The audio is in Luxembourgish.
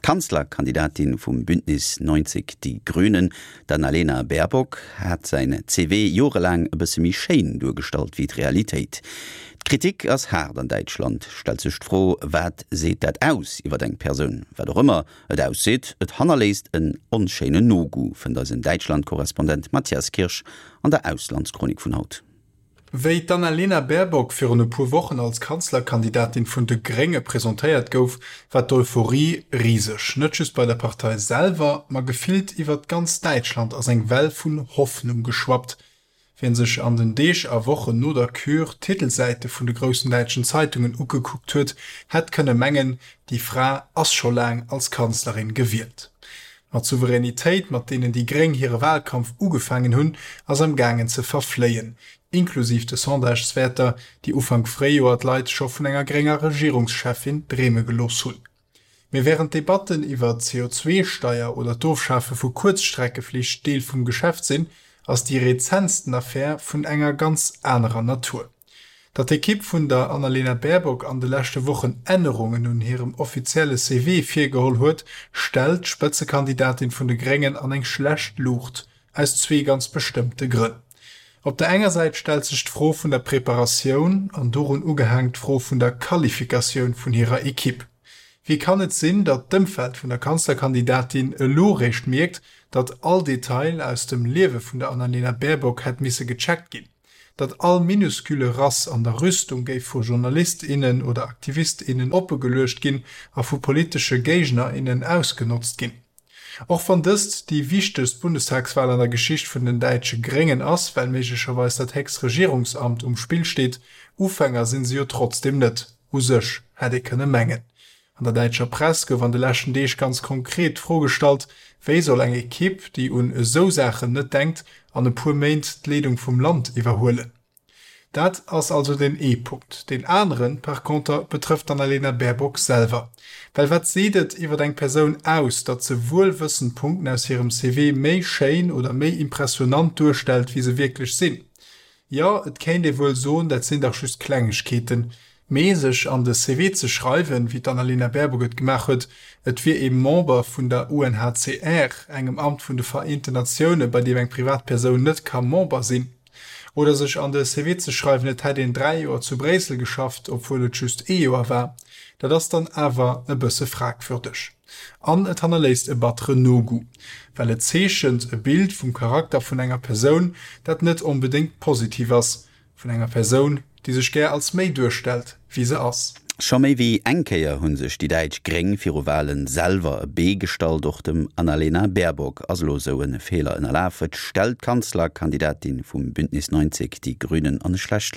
D'Kanzlerkandidatin vum Bündnis 90 Die Grünen, d'Annalena Baerbock, hat säin CV jorelaang e bësse méi schéin duergestallt wéi d'Realitéit. D'Kritik ass haart an Däitschland. Stellt sech d'Fro, wat seet dat aus iwwer eng Persoun? Wat och ëmmer et ausseet, et hannerléisst en onschéinen Nogoût, fënnt eisen Däitschland-Korrespondent Matthias Kirsch an der Auslandschronik vun haut. Wéi d'Annalena Baerbock virun e puer Wochen als Kanzlerkandidatin vun de Grénge presentéiert gouf, war d'Euphorie riseg. Net just bei der Partei selwer, ma gefillt iwwert ganz Däitschland ass eng Well vun Hoffnung geschwappt. Wien sech an den Deeg a Wochen no der Kür d'Titelsäite vun de groussen däitschen Zeitungen ugekuckt huet, hätt kënne mengen, déi Fra ass scho laang als Kanzlerin gewielt. Ma d'Souveränitéit, mat deenen déi Gréng hire Wahlkampf ugefaangen hunn, ass am gaangen ze verfléien, inklusiv de Sondageswäerter, déi Ufank Fréijoer d'Leit scho vun enger grénger Regierungscheffin dreeme gelooss hunn. Mee wärend d'Debatten iwwer d'CO2-Steier oder d'Ofschafe vu Kuerzstreckeflich Deel vum Geschäft sinn, ass déi rezentsten Affär vun enger ganz anerer Natur. Datt d'Ekipp vun der Annalena Baerbock an de leschte Wochen Ännerungen un hirem offizielle CV virgeholl huet, stellt d'Spëtzekandidatin vun de Gréngen an eng schlecht Luucht, aus zwee ganz bestëmmte Grënn. Op der enger Säit stellt sech d'Fro vun der Preparatioun an dorun ugehaang d'Fro vun der Qualifikatioun vun hirer Ekipp. Wéi kann et sinn, datt d'Ëmfeld vun der Kanzlerkandidatin elo réischt mierkt, datt all Detail aus dem Liewe vun der Annalena Baerbock hätt misse gecheckt ginn? datt all minuscule Rass an der Rüstung géif vu Journalist, innen oder Aktivist, innen oppegeluecht ginn a vu politesche Géigner, innen ausgenotzt ginn. Och wann dëst déi wichtegst Bundestagswal an der Geschicht vun den däitsche Gréngen ass, well méiglecherweis dat héchst Regierungsamt um Spill steet, Ufänger sinn se jo trotzdeem net, u sech, hätt ee kënne mengen. An der däitscher Press gouf an de leschten Deeg ganz konkret d'Fro gestallt, Wéi soll eng Ekipp, déi un esou Saachen net denkt, an e puer Méint d'Leedung vum Land iwwerhuelen? Dat ass also deen ee Punkt. Deen aneren par conter betrëfft d'Annalena Baerbock selwer. Well wat seet et iwwer eng Persoun aus, datt se wuelwëssend Punkten aus hirem CV méi schéin oder méi impressionant duerstellt, wéi se wierklech sinn? Jo, et kéint ee wuel soen, dat sinn dach just Klengegkeeten. Mee sech an de CV ze schreiwen, wéi d'Annalena Baerbock et gemaach huet, et wier ee Member vun der UNHCR, engem Amt vun de Vereenten Natioune bei deem eng Privatpersoun net ka Member sinn. Oder sech an de CV ze schreiwen, et hätt een 3 Joer zu Bréissel geschafft, obwuel et just ee Joer war, dat ass dann awer e bësse fragwürdeg. An et hannerléisst e batteren Nogoût, well et zeechent e Bild vum Charakter vun enger Persoun, dat net onbedéngt positiv ass, vun enger Persoun, déi sech gär als méi duerstellt, wéi se ass. Scho méi wéi eng Kéier hu sech déi däitsch Gréng viru Wale selwer e Bee gestallt. Och dem Annalena Baerbock ass elo esou e Feeler ënnerlaf. Et stellt d'Kanzlerkandidatin vum Bündnis 90, Die Grünen an e schlecht.